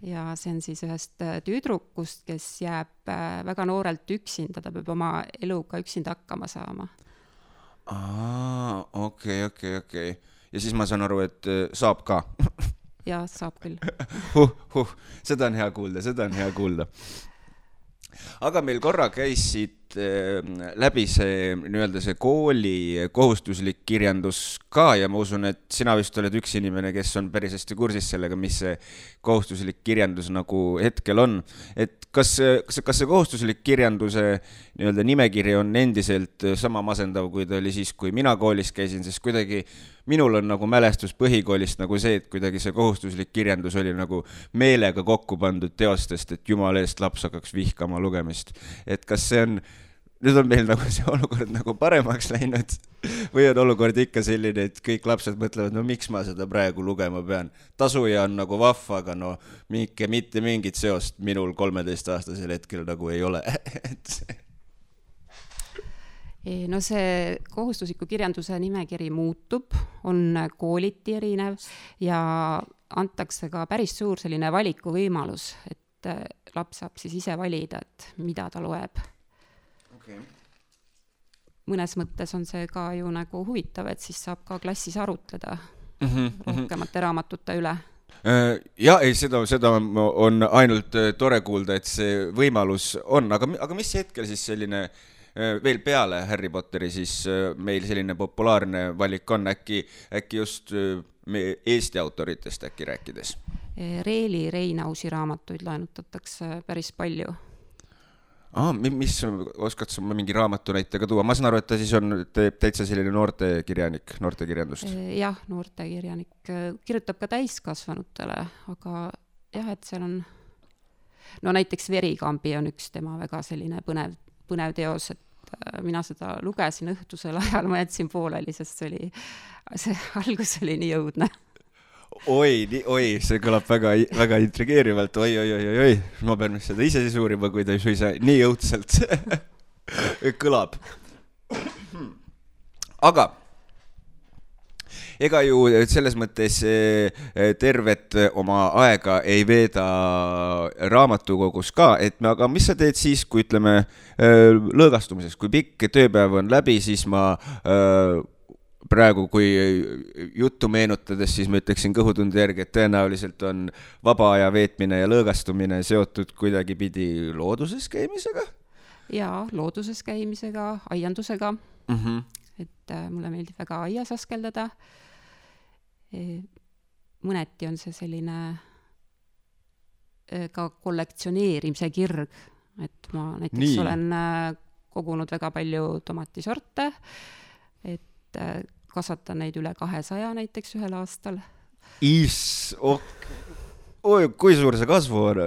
Ja see on siis ühest tüdrukust, kes jääb väga noorelt üksinda, ta peab oma eluga üksinda hakkama saama. Okei. Ja siis ma saan aru, et saab ka. Ja, saab küll. Seda on hea kuulda. Aga meil korra käis siit läbi see nii-öelda see kooli kohustuslik kirjandus ka ja ma usun, et sina vist oled üks inimene, kes on päris hästi kursis sellega, mis see kohustuslik kirjandus nagu hetkel on. Et kas see kohustuslik kirjanduse nii-öelda nimekiri on endiselt sama masendav, kui ta oli siis, kui mina koolis käisin, sest kuidagi minul on nagu mälestus põhikoolist nagu see, et kuidagi see kohustuslik kirjandus oli nagu meelega kokku pandud teostest, et jumala eest laps hakkaks vihkama lugemist. Et kas see on, nüüd on meil nagu see olukord nagu paremaks läinud või on olukord ikka selline, et kõik lapsed mõtlevad, no miks ma seda praegu lugema pean. Tasuja on nagu vahva, aga no mitte mingit seost minul 13-aastasel hetkel nagu ei ole. No see kohustusliku kirjanduse nimekiri muutub, on kooliti erinev ja antakse ka päris suur selline valikuvõimalus, et laps saab siis ise valida, et mida ta loeb. Okay. Mõnes mõttes on see ka ju nagu huvitav, et siis saab ka klassis arutleda rohkemate raamatute üle. Ja, ei, seda on ainult tore kuulda, et see võimalus on, aga mis hetkel siis selline veel peale Harry Potteri siis meil selline populaarne valik on äkki just Eesti autoritest äkki rääkides? Reeli Reinausi raamatuid laenutatakse päris palju. Mis oskad sa mingi raamatu näitega tuua? Ma saan aru, et ta siis on täitsa selline noortekirjanik, noortekirjandust. Jah, noortekirjanik. Kirjutab ka täiskasvanutele, aga jah, et seal on no näiteks Verikambi on üks tema väga selline põnev teos, et mina seda lugesin õhtusel ajal, ma jätsin pooleli, sest see algus oli nii jõudne. Oi, see kõlab väga intrigeerivalt, oi, ma pean seda ise siis uurima, kui ta suisa nii jõudselt kõlab. Aga ega ju selles mõttes tervet oma aega ei veeda raamatukogus ka, aga mis sa teed siis, kui ütleme lõõgastumises, kui pikk tööpäev on läbi, siis ma praegu, kui juttu meenutades, siis ma ütleksin kõhutunde järgi, et tõenäoliselt on vaba aja veetmine ja lõõgastumine seotud kuidagi pidi looduses käimisega? Jaa, looduses käimisega, aiandusega. Et mulle meeldib väga aias askeldada. Mõneti on see selline ka kollektsioneerimise kirg, et ma näiteks olen kogunud väga palju tomatisorte, et kasvatan neid üle 200 näiteks ühel aastal. Kui suur see kasvu on?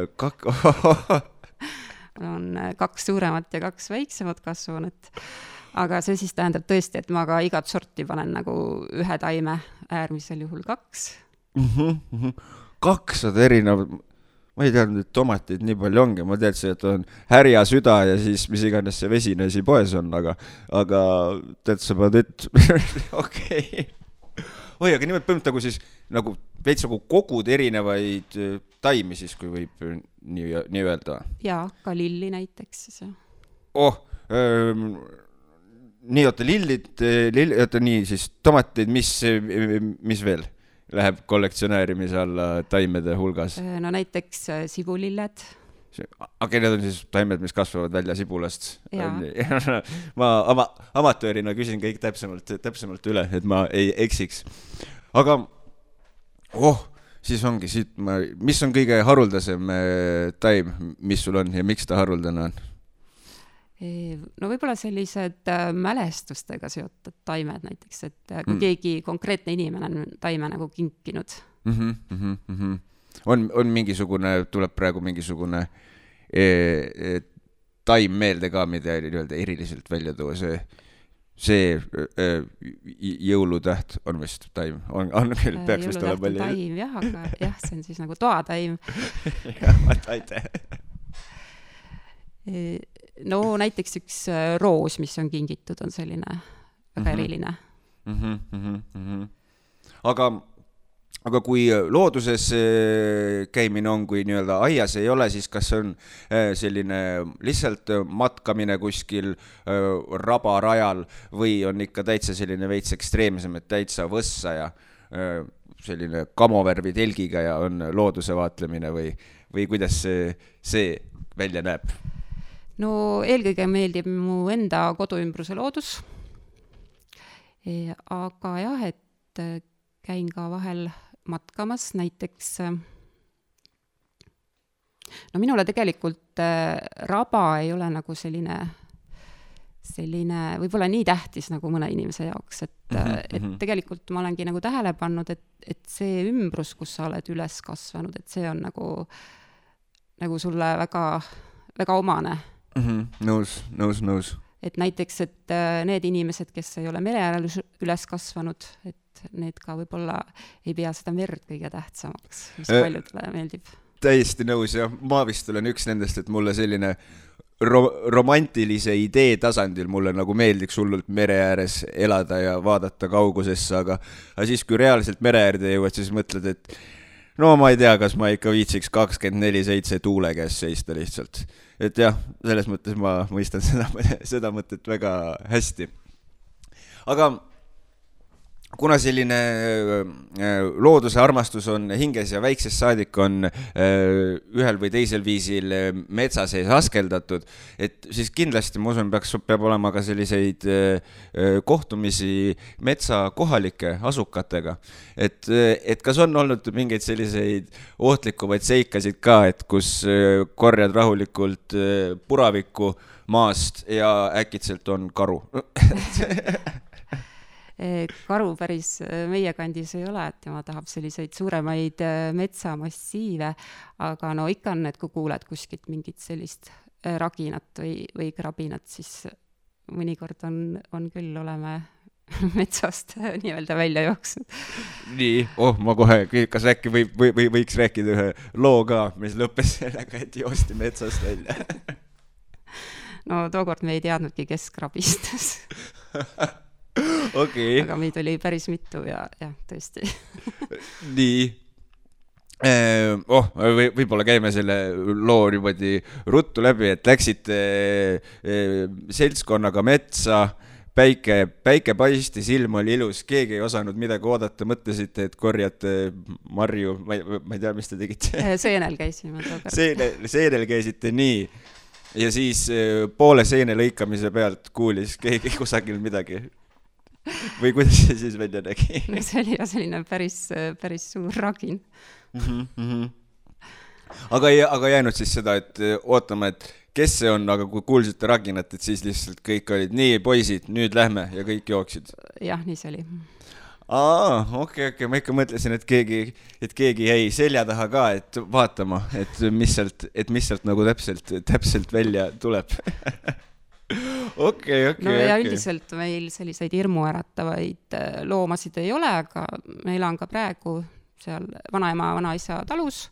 On 2 suuremat ja 2 väiksemat kasvunet. Aga see siis tähendab tõesti, et ma ka igat sorti panen nagu ühe taime, äärmisel juhul 2. 200 erinevad, ma ei teadnud, et tomatid nii palju ongi, ma teadsin, et on härja süda ja siis mis iganes see vesine asi poes on, aga tead sa pead, et okei. Oi, aga nimelt põhimõtteliselt nagu siis nagu veits nagu kogud erinevaid taimi siis, kui võib nii öelda. Jaa, ka lilli näiteks. Nii, lillid, nii siis tomatid, mis veel läheb kollektsionäärimise alla taimede hulgas? No näiteks sibulilled. Aga need on siis taimed, mis kasvavad välja sibulast. Ma amatöörina küsin kõik täpsemalt üle, et ma ei eksiks. Aga, siis ongi siit, mis on kõige haruldasem taim, mis sul on ja miks ta haruldane on? No võib-olla sellised mälestustega seotud taimed näiteks, et kui keegi konkreetne inimene on taime nagu kinkinud. On mingisugune, tuleb praegu mingisugune taim meelde ka, mida eriliselt välja tuua, see jõulutäht on vist taim, on küll, peaks vist olema palju. Jõulutäht on taim, jah, aga jah, see on siis nagu toataim. Aitäh. No näiteks üks roos, mis on kingitud, on selline väga eriline. Aga kui looduses käimine on, kui nii-öelda aias ei ole, siis kas on selline lihtsalt matkamine kuskil rabarajal või on ikka täitsa selline veits ekstreemsem, et täitsa võssa ja selline kamovärvi telgiga ja on looduse vaatlemine või kuidas see välja näeb? no eelkõige meeldib mu enda koduümbruse loodus, aga jah, et käin ka vahel matkamas, näiteks no minule tegelikult raba ei ole nagu selline võib-olla nii tähtis nagu mõne inimese jaoks, et tegelikult ma olengi nagu tähele pannud, et see ümbrus, kus sa oled üles kasvanud, et see on nagu sulle väga, väga omane. Nõus. Et näiteks, et need inimesed, kes ei ole mere äärel üles kasvanud, et need ka võib-olla ei pea seda merd kõige tähtsamaks, mis paljudele meeldib. Täiesti nõus ja ma vist olen üks nendest, et mulle selline romantilise idee tasandil mulle nagu meeldiks hullult mere ääres elada ja vaadata kaugusesse, aga siis, kui reaalselt mere äärde jõuad, siis mõtled, et no ma ei tea, kas ma ikka viitsiks 24/7 tuule käes seista lihtsalt. Et jah, selles mõttes ma mõistan seda mõtet väga hästi. Aga kuna selline looduse armastus on hinges ja väiksest saadik on ühel või teisel viisil metsa sees askeldatud, et siis kindlasti, ma usun, peab olema ka selliseid kohtumisi metsa kohalike asukatega. Et kas on olnud mingeid selliseid ohtlikumaid seikasid ka, et kus korjad rahulikult puravikku maast ja äkitselt on karu? Karu päris meie kandis ei ole, et tema tahab selliseid suuremaid metsamassiive, aga no ikka on, et kui kuuled kuskilt mingit sellist raginat või krabinat, siis mõnikord on küll, oleme metsast nii-öelda välja jooksnud. Nii, ma kohe, kas äkki võiks rääkida ühe loo ka, mis lõppes sellega, et joosti metsast välja? No tookord me ei teadnudki, kes krabistas. Okay. Aga meid oli päris mitu ja tõesti. Nii. Võib-olla käime selle loo niimoodi ruttu läbi, et läksite seltskonnaga metsa, päike paistis, ilm oli ilus, keegi ei osanud midagi oodata, mõtlesite, et korjate marju, ma ei tea, mis te tegite. Seenel käisime tookord. Seenel käisite nii. Ja siis poole seene lõikamise pealt kuulis keegi kusagil midagi. Või kuidas see siis välja nägi? See oli ja selline päris suur ragin. Aga jäänud siis seda, et ootame, et kes see on, aga kui kuulsite raginat, et siis lihtsalt kõik olid nii, poisid, nüüd lähme ja kõik jooksid. Jah, nii see oli. Okei, ma ikka mõtlesin, et keegi jäi selja taha ka, et vaatama, et mis sealt nagu täpselt välja tuleb. Okay. No ja üldiselt meil selliseid hirmuäratavaid loomasid ei ole, aga meil on ka praegu seal vanaema, vanaisa talus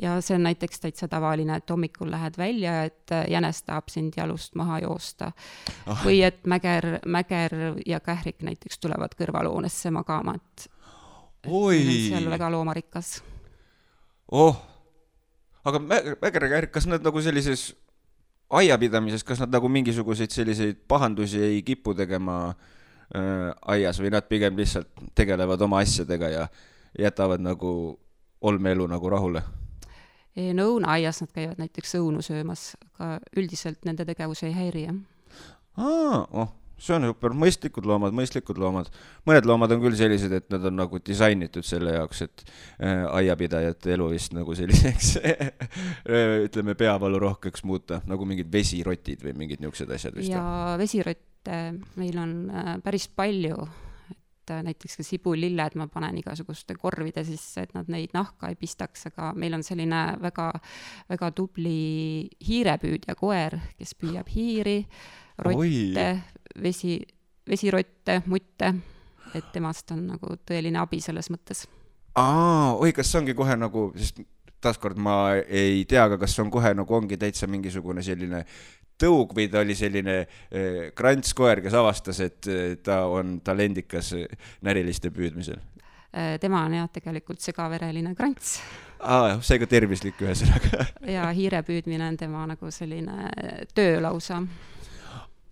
ja see on näiteks täitsa tavaline, et hommikul lähed välja, et jänes tahab sind jalust maha joosta. Või et mäger ja kährik näiteks tulevad kõrvaloonesse magama, et seal on väga loomarikas. Aga mäger ja kährik, kas nad nagu sellises aiapidamises, kas nad nagu mingisuguseid selliseid pahandusi ei kipu tegema aias või nad pigem lihtsalt tegelevad oma asjadega ja jätavad nagu olmeelu nagu rahule? No õunaaias nad käivad näiteks õunu söömas, aga üldiselt nende tegevus ei häiri. See on super, mõistlikud loomad. Mõned loomad on küll sellised, et nad on nagu disainitud selle jaoks, et aiapidajate elu vist nagu selliseks, ütleme, peavalu rohkeks muuta, nagu mingid vesirotid või mingid niisugused asjad vist. Ja vesirotte meil on päris palju, et näiteks ka sibulilled ma panen igasuguste korvide sisse, et nad neid nahka ei pistaks, aga meil on selline väga, väga tubli hiirepüüdja koer, kes püüab hiiri, rotte, vesirotte, mutte, et temast on nagu tõeline abi selles mõttes. Kas see ongi kohe nagu, sest taaskord ma ei tea, aga kas on kohe nagu ongi täitsa mingisugune selline tõug või ta oli selline krantskoer, kes avastas, et ta on talendikas näriliste püüdmisel? Tema on jah tegelikult segavereline krants. Seega tervislik ühesõnaga. Ja hiire püüdmine on tema nagu selline töölausa.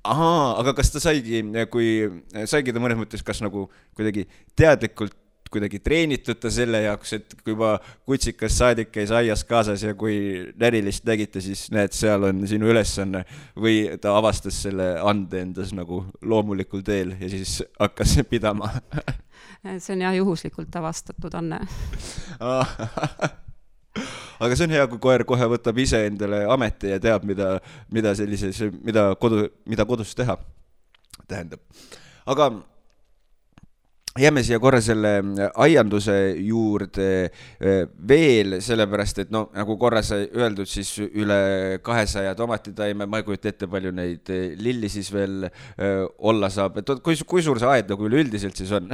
Aga kas ta saigi ta mõnes mõttes kas nagu kuidagi teadlikult kuidagi treenitud ta selle jaoks, et kui juba kutsikas saadik käis aias kaasas ja kui närilist nägite, siis näed, seal on sinu ülesanne, või ta avastas selle ande endas nagu loomulikul teel ja siis hakkas pidama? See on jah juhuslikult avastatud Anne. Aga see on hea, kui koer kohe võtab ise endale ameti ja teab, mida kodus teha tähendab. Aga jääme siia korra selle aianduse juurde veel, sellepärast, et no nagu korra sai öeldud, siis üle 200 tomatitaime, ma ei kujuta ette, palju neid lilli siis veel olla saab. Et kui suur see aed nagu üleüldiselt siis on?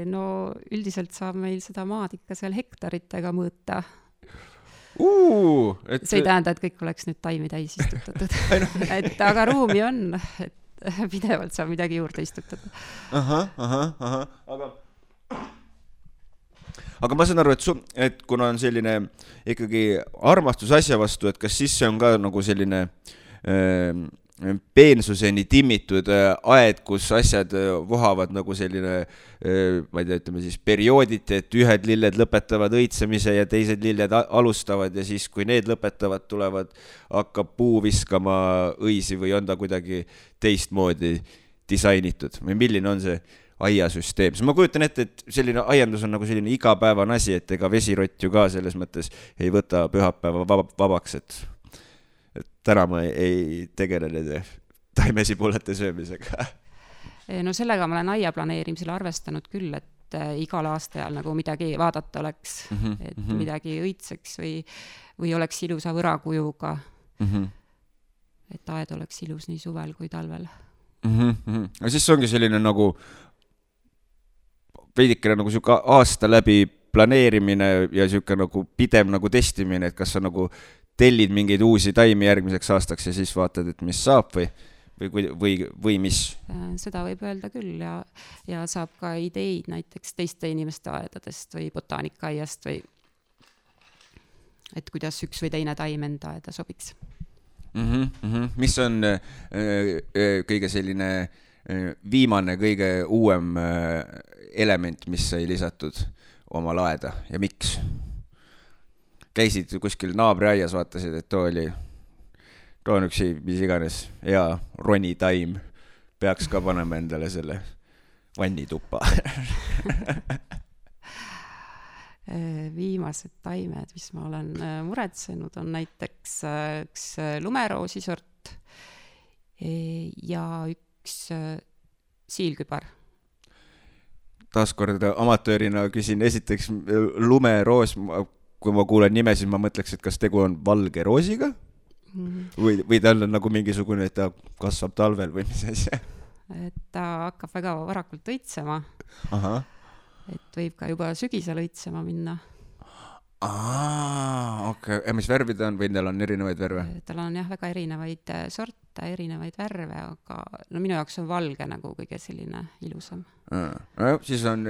No üldiselt saab meil seda maad ikka seal hektaritega mõõta. See ei tähenda, et kõik oleks nüüd taimi täis istutatud. Aga ruumi on, et pidevalt saab midagi juurde istutada. Aga ma saan aru, et kuna on selline ikkagi armastus asja vastu, et kas siis see on ka nagu selline peensuseni timmitud aed, kus asjad vohavad nagu selline, ma ei tea, ütleme siis periooditi, et ühed lilled lõpetavad õitsemise ja teised lilled alustavad ja siis, kui need lõpetavad, hakkab puu viskama õisi või on ta kuidagi teistmoodi disainitud või milline on see aiasüsteem? Ma kujutan ette, et selline aiandus on nagu selline igapäevane asi, et ega vesirott ju ka selles mõttes ei võta pühapäeva vabaks, et täna ma ei tegele nende taimesibulate söömisega. No sellega ma olen aia planeerimisel arvestanud küll, et igal aastajal nagu midagi vaadata oleks, et midagi õitseks või oleks ilusa võrakujuga, et aed oleks ilus nii suvel kui talvel. Ja siis ongi selline nagu veidikene nagu siuke aasta läbi planeerimine ja siuke nagu pidev nagu testimine, et kas sa nagu tellid mingeid uusi taimi järgmiseks aastaks ja siis vaatad, et mis saab või mis? Seda võib öelda küll ja saab ka ideid näiteks teiste inimeste aedadest või botaanikaaiast või et kuidas üks või teine taim enda aeda sobiks. Mis on kõige selline viimane, kõige uuem element, mis sai lisatud oma aeda ja miks? Käisid kuskil naabriaias, vaatasid, et too on üks mis iganes hea ronitaim, peaks ka panema endale selle vannituppa. Viimased taimed, mis ma olen muretsenud, on näiteks üks lumeroosisort ja üks siilkübar. Taaskord amatöörina küsin esiteks lumeroos, kui ma kuulen nime, siis ma mõtleks, et kas tegu on valge roosiga või tal on nagu mingisugune, et ta kasvab talvel või mis asja? Et ta hakkab väga varakult õitsema. Et võib ka juba sügisel õitsema minna. Okei. Ja mis värvid on või neil on erinevaid värve? Tal on jah väga erinevaid sorte, erinevaid värve, aga no minu jaoks on valge nagu kõige selline ilusam. Siis on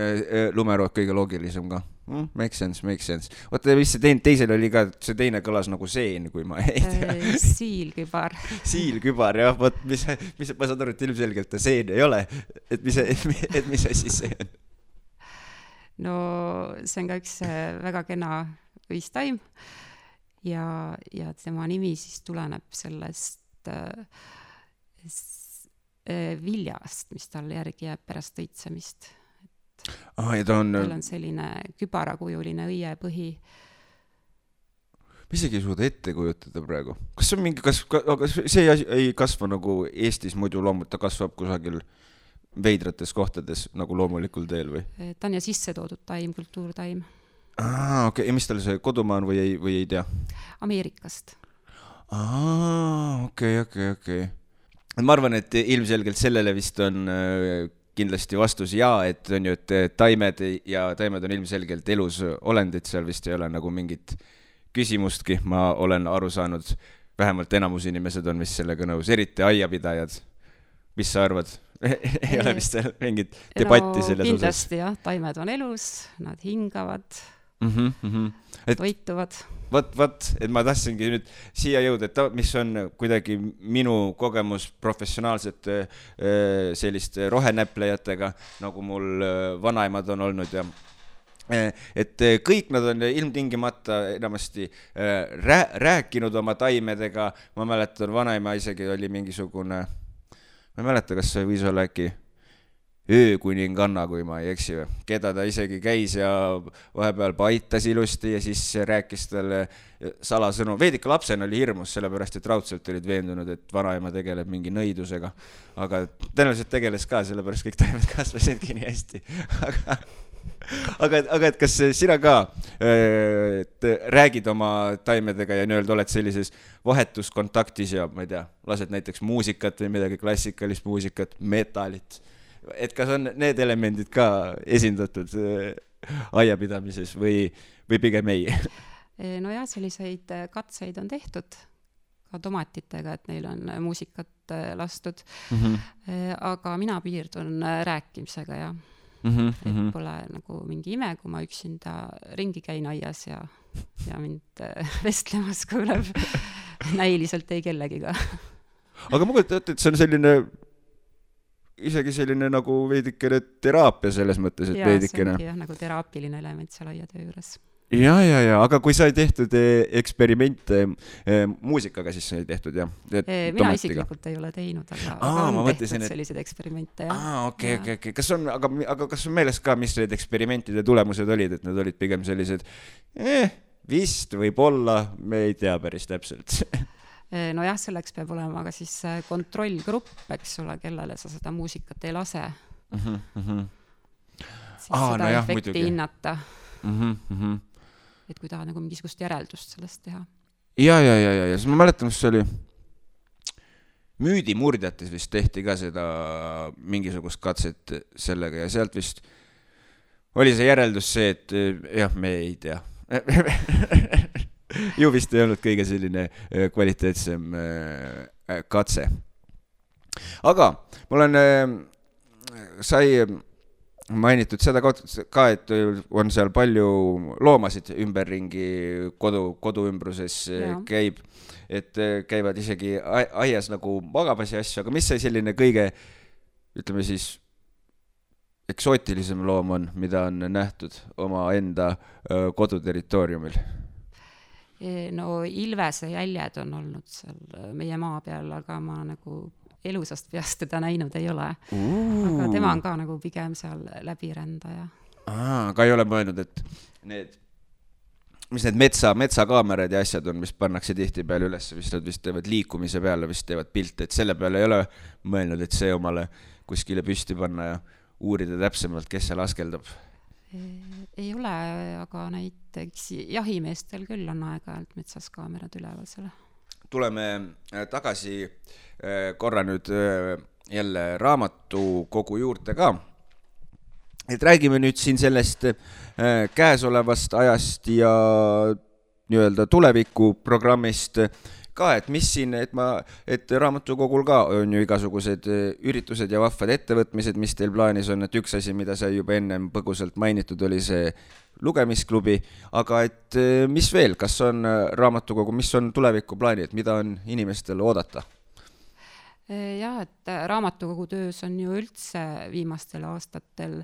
lumerood kõige loogilisem ka. Makes sense. Oota, mis see teisel oli ka, see teine kõlas nagu seen, kui ma ei tea. Siilkübar. Siilkübar, jah. Ma saan aru, et ilmselgelt ta seen ei ole. Et mis asi see on? No see on ka üks väga kena õistaim ja tema nimi siis tuleneb sellest viljast, mis tal järgi jääb pärast õitsemist. Ja tal on selline kübarakujuline õiepõhi. Ma isegi ei suuda ette kujutada praegu. Kas see on mingi, aga see ei kasva nagu Eestis muidu loomult, ta kasvab kusagil veidrates kohtades nagu loomulikul teel või? Ta on ja sisse toodud taim, kultuurtaim. Okei. Ja mis tal see kodumaa on või ei tea? Ameerikast. Okei. Ma arvan, et ilmselgelt sellele vist on kindlasti vastus et on ju, et taimed on ilmselgelt elus olendid, seal vist ei ole nagu mingit küsimustki, ma olen aru saanud, vähemalt enamus inimesed on vist sellega nõus, eriti aiapidajad. Mis sa arvad? Ei ole vist mingit debatti selles osas? Kindlasti jah, taimed on elus, nad hingavad, toituvad. Vot, et ma tahtsingi nüüd siia jõuda, et mis on kuidagi minu kogemus professionaalsete selliste rohenäplejatega, nagu mul vanaemad on olnud ja et kõik nad on ilmtingimata enamasti rääkinud oma taimedega, ma mäletan, vanaema isegi oli mingisugune, ma ei mäleta, kas see võis olla äkki öökuninganna, kui ma ei eksi, keda ta isegi käis ja vahepeal paitas ilusti ja siis rääkis talle salasõnu. Veidike lapsena oli hirmus, sellepärast et raudselt olid veendunud, et vanaema tegeleb mingi nõidusega, aga tõenäoliselt tegeles ka, sellepärast kõik taimed kasvasidki nii hästi. Aga et kas sina ka räägid oma taimedega ja nii-öelda oled sellises vahetuskontaktis ja ma ei tea, lased näiteks muusikat või midagi klassikalist muusikat, metalit, et kas on need elemendid ka esindatud aiapidamises või pigem ei? No jah, selliseid katseid on tehtud ka tomatitega, et neil on muusikat lastud, aga mina piirdun rääkimisega ja et pole nagu mingi ime, kui ma üksinda ringi käin aias ja mind vestlemas kuuleb näiliselt ei kellegiga. Aga ma kujutan ette, et see on selline isegi selline nagu veidikene teraapia selles mõttes, et veidikene. Jaa, see ongi jah, nagu teraapiline element seal aiatöö juures. Ja, aga kui sa ei tehtud eksperimente muusikaga, siis sa ei tehtud, jah? Mina isiklikult ei ole teinud, aga on tehtud sellised eksperimente, jah. Okei. Aga kas on meeles ka, mis need eksperimentide tulemused olid, et need olid pigem sellised vist võib-olla, me ei tea päris täpselt. No jah, selleks peab olema ka siis kontrollgrupp, eks ole, kellele sa seda muusikat ei lase. Siis seda efekti hinnata. Et kui tahad nagu mingisugust järeldust sellest teha. Ja, siis ma mäletan, mis see oli Müüdimurdjates vist tehti ka seda mingisugust katset sellega ja sealt vist oli see järeldus see, et jah, me ei tea. Ju vist ei olnud kõige selline kvaliteetsem katse. Aga mul on sai mainitud seda ka, et on seal palju loomasid ümberringi kodu ümbruses käib, et käivad isegi aias nagu magamas ja asju, aga mis see selline kõige, ütleme siis, eksootilisem loom on, mida on nähtud oma enda koduterritooriumil? No Ilvese jäljed on olnud seal meie maa peal, aga ma nagu elusast peast teda näinud ei ole. Aga tema on ka nagu pigem seal läbirändaja. Aga ei ole mõelnud, et mis need metsakaamerad ja asjad on, mis pannakse tihti peale üles, nad vist teevad liikumise peale, vist teevad pilte, et selle peale ei ole mõelnud, et see omale kuskile püsti panna ja uurida täpsemalt, kes seal askeldab. Ei ole, aga näiteks jahimeestel küll on aeg-ajalt metsas kaamerad üleval selle. Tuleme tagasi korra nüüd jälle raamatukogu juurde ka. Et räägime nüüd siin sellest käesolevast ajast ja nii-öelda tulevikuprogrammist ka, et mis siin, et raamatukogul ka on ju igasugused üritused ja vahvad ettevõtmised, mis teil plaanis on, et üks asi, mida sai juba ennem põgusalt mainitud, oli see lugemisklubi, aga et mis veel, kas on raamatukogu, mis on tulevikuplaani, et mida on inimestel oodata? Jah, et raamatukogu töös on ju üldse viimastel aastatel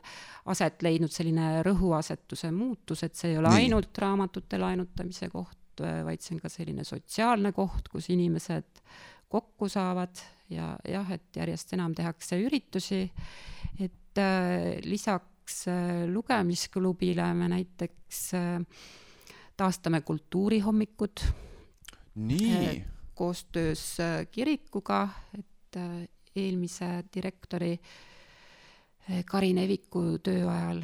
aset leidnud selline rõhuasetuse muutus, et see ei ole ainult raamatute laenutamise koht, vaid see on ka selline sotsiaalne koht, kus inimesed kokku saavad ja jah, et järjest enam tehakse üritusi, et lisaks lugemisklubile me näiteks taastame kultuurihommikud koostöös kirikuga, et eelmise direktori Karin Eviku töö ajal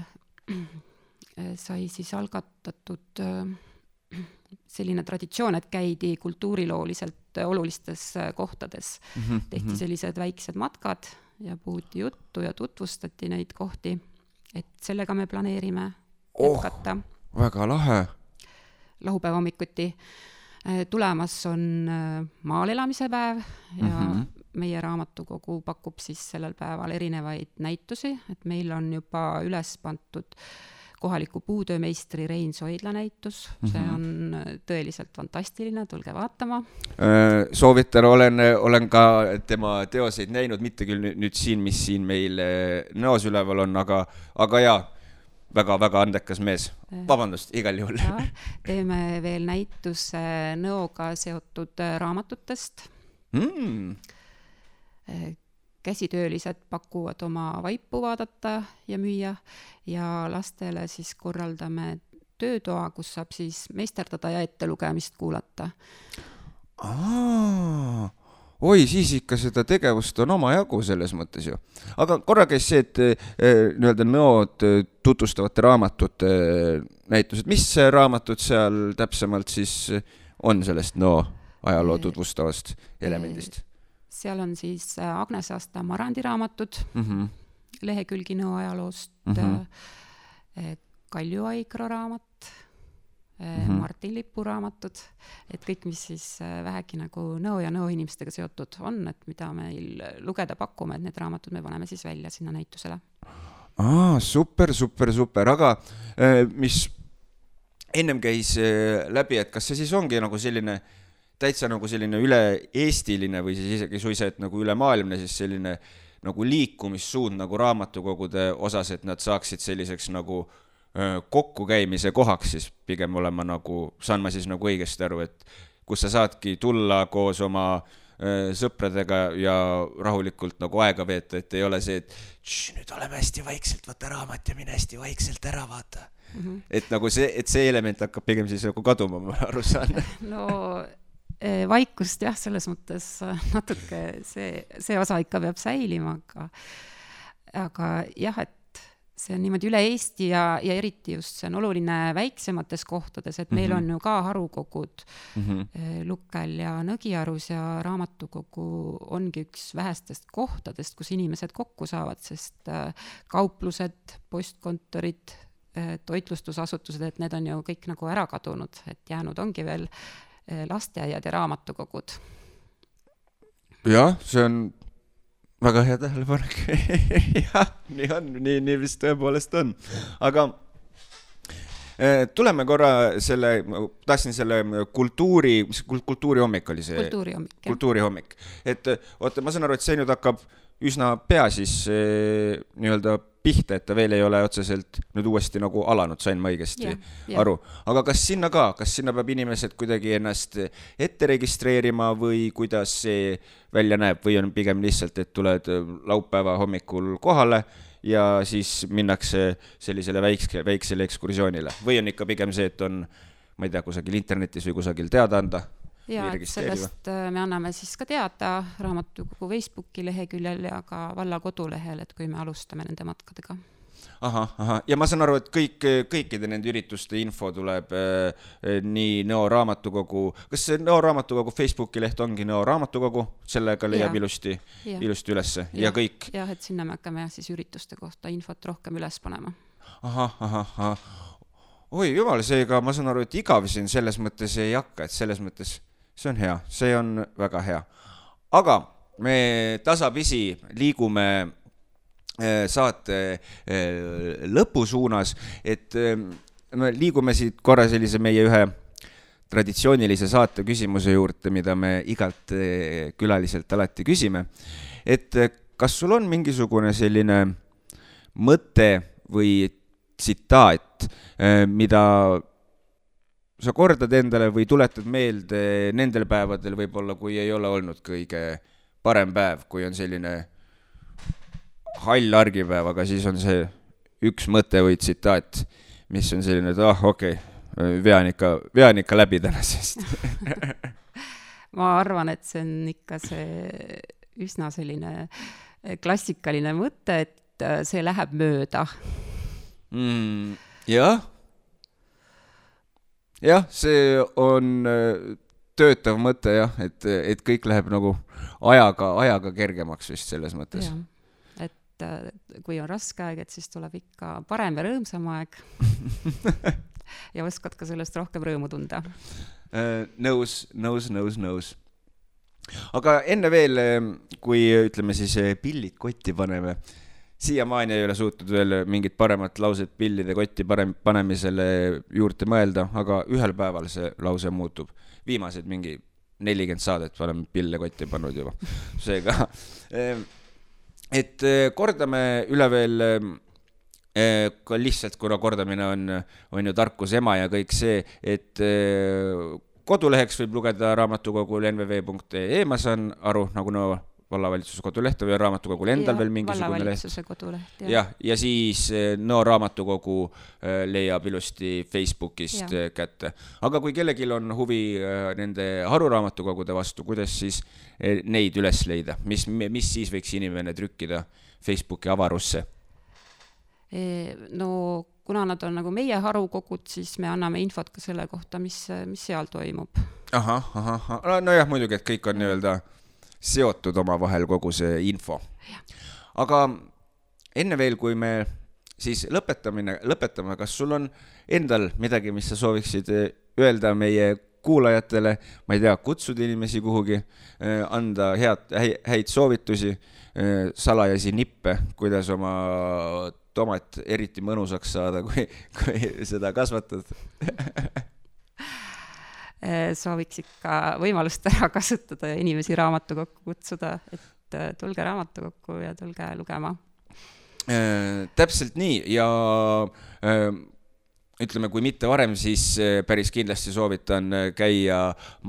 sai siis algatatud selline traditsioon, et käidi kultuurilooliselt olulistes kohtades. Tehti sellised väiksed matkad ja puhuti juttu ja tutvustati neid kohti, et sellega me planeerime jätkata. Väga lahe. Laupäeva hommikuti tulemas on maal elamise päev ja meie raamatukogu pakub siis sellel päeval erinevaid näitusi, et meil on juba üles pandud kohaliku puutöömeistri Rein Soidla näitus, see on tõeliselt fantastiline, tulge vaatama. Soovitan, olen ka tema teoseid näinud, mitte küll nüüd siin, mis siin meil näos üleval on, aga jaa, väga-väga andekas mees. Vabandust, igal juhul. Teeme veel näituse nõoga seotud raamatutest. Käsitöölised pakuvad oma vaipu vaadata ja müüa ja lastele siis korraldame töötoa, kus saab siis meisterdada ja ettelugemist kuulata. Oi, siis ikka seda tegevust on oma jagu selles mõttes ju. Aga korra käis see, et nii-öelda nõod tutvustavate raamatute näitused. Mis raamatud seal täpsemalt siis on sellest nõo ajaloo tutvustavast elemendist? Seal on siis Agnes Asta Marandi raamatud, lehekülgi nõo ajaloost, Kalju Aikro raamat, Martin Lipu raamatud, et kõik, mis siis vähegi nagu nõo ja nõo inimestega seotud on, et mida meil lugeda pakume, et need raamatud me paneme siis välja sinna näitusele. Super, aga mis ennem käis läbi, et kas see siis ongi nagu selline täitsa nagu selline üle-eestiline või siis isegi suisa, et nagu ülemaailmne siis selline nagu liikumissuund nagu raamatukogude osas, et nad saaksid selliseks nagu kokkukäimise kohaks siis pigem olema nagu, saan ma siis nagu õigesti aru, et kus sa saadki tulla koos oma sõpradega ja rahulikult nagu aega veeta, et ei ole see, et nüüd oleme hästi vaikselt, võta raamat ja mine hästi vaikselt ära vaata. Et nagu see element hakkab pigem siis nagu kaduma, ma aru saan. No vaikust jah, selles mõttes natuke see osa ikka peab säilima, aga jah, et see on niimoodi üle Eesti ja eriti just see on oluline väiksemates kohtades, et meil on ju ka harukogud Lukkel ja Nõgiarus ja raamatukogu ongi üks vähestest kohtadest, kus inimesed kokku saavad, sest kauplused, postkontorid, toitlustusasutused, et need on ju kõik nagu ära kadunud, et jäänud ongi veel lasteaiad ja raamatukogud. Jah, see on väga hea tähelepanek. Jah, nii on, nii vist tõepoolest on. Aga tuleme korra tahtsin selle kultuurihommik oli see. Kultuurihommik. Et oota, ma saan aru, et see nüüd hakkab üsna pea siis nii-öelda pihta, et ta veel ei ole otseselt nüüd uuesti nagu alanud, sain ma õigesti aru. Aga kas sinna peab inimesed kuidagi ennast ette registreerima või kuidas see välja näeb või on pigem lihtsalt, et tuled laupäeva hommikul kohale ja siis minnakse sellisele väiksele ekskursioonile või on ikka pigem see, et on, ma ei tea, kusagil internetis või kusagil teada anda? Ja, et sellest me anname siis ka teada raamatukogu Facebooki leheküljel ja ka valla kodulehel, et kui me alustame nende matkadega. Ja ma saan aru, et kõikide nende ürituste info tuleb nii Nõo raamatukogu, kas see Nõo raamatukogu Facebooki leht ongi Nõo raamatukogu, sellega leiab ilusti ülesse ja kõik? Jah, et sinna me hakkame siis ürituste kohta infot rohkem üles panema. Oi, jumal, seega ma saan aru, et igavisin selles mõttes ei hakka, et selles mõttes see on hea, see on väga hea. Aga me tasapisi liigume saate lõpusuunas, et me liigume siit korra sellise meie ühe traditsioonilise saate küsimuse juurde, mida me igalt külaliselt alati küsime. Et kas sul on mingisugune selline mõte või tsitaat, mida sa kordad endale või tuletad meelde nendel päevadel võib-olla, kui ei ole olnud kõige parem päev, kui on selline hall argipäev, aga siis on see üks mõte või tsitaat, mis on selline, et okei, vean ikka läbi tänasest. Ma arvan, et see on ikka see üsna selline klassikaline mõte, et see läheb mööda. Jah, see on töötav mõte jah, et kõik läheb nagu ajaga kergemaks vist selles mõttes. Ja, et kui on raske aeg, et siis tuleb ikka parem ja rõõmsam aeg ja oskad ka sellest rohkem rõõmu tunda. Nõus. Aga enne veel, kui ütleme siis pillid kotti paneme, siiamaani ei ole suutnud veel mingit paremat lauset pillide kotti panemisele juurde mõelda, aga ühel päeval see lause muutub. Viimased mingi 40 saadet oleme pille kotti pannud juba. Seega, et kordame üle veel, lihtsalt kuna kordamine on ju tarkus ema ja kõik see, et koduleheks võib lugeda raamatukogul nvv.ee, ma saan aru, nagu vallavalitsuse koduleht või raamatukogul endal veel mingisugune leht. Vallavalitsuse koduleht, jah. Ja siis raamatukogu leiab ilusti Facebookist kätte. Aga kui kellegil on huvi nende haruraamatukogude vastu, kuidas siis neid üles leida? Mis siis võiks inimene trükkida Facebooki avarusse? No kuna nad on nagu meie harukogud, siis me anname infot ka selle kohta, mis seal toimub. No jah, muidugi, et kõik on nii-öelda seotud oma vahel kogu see info. Aga enne veel, kui me siis lõpetame, kas sul on endal midagi, mis sa sooviksid öelda meie kuulajatele, ma ei tea, kutsuda inimesi kuhugi, anda häid soovitusi, salajasi nippe, kuidas oma tomat eriti mõnusaks saada, kui seda kasvatad? Sooviks ikka võimalust ära kasutada ja inimesi raamatukokku kutsuda, et tulge raamatukokku ja tulge lugema. Täpselt nii ja ütleme, kui mitte varem, siis päris kindlasti soovitan käia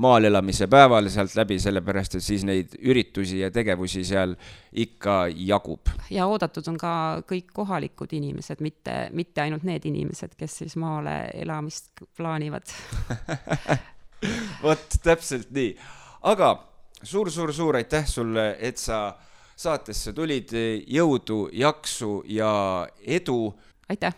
maal elamise päeval sealt läbi, sellepärast, et siis neid üritusi ja tegevusi seal ikka jagub. Ja oodatud on ka kõik kohalikud inimesed, mitte ainult need inimesed, kes siis maale elamist plaanivad. Vot, täpselt nii. Aga suur aitäh sulle, et sa saatesse tulid, jõudu, jaksu ja edu. Aitäh!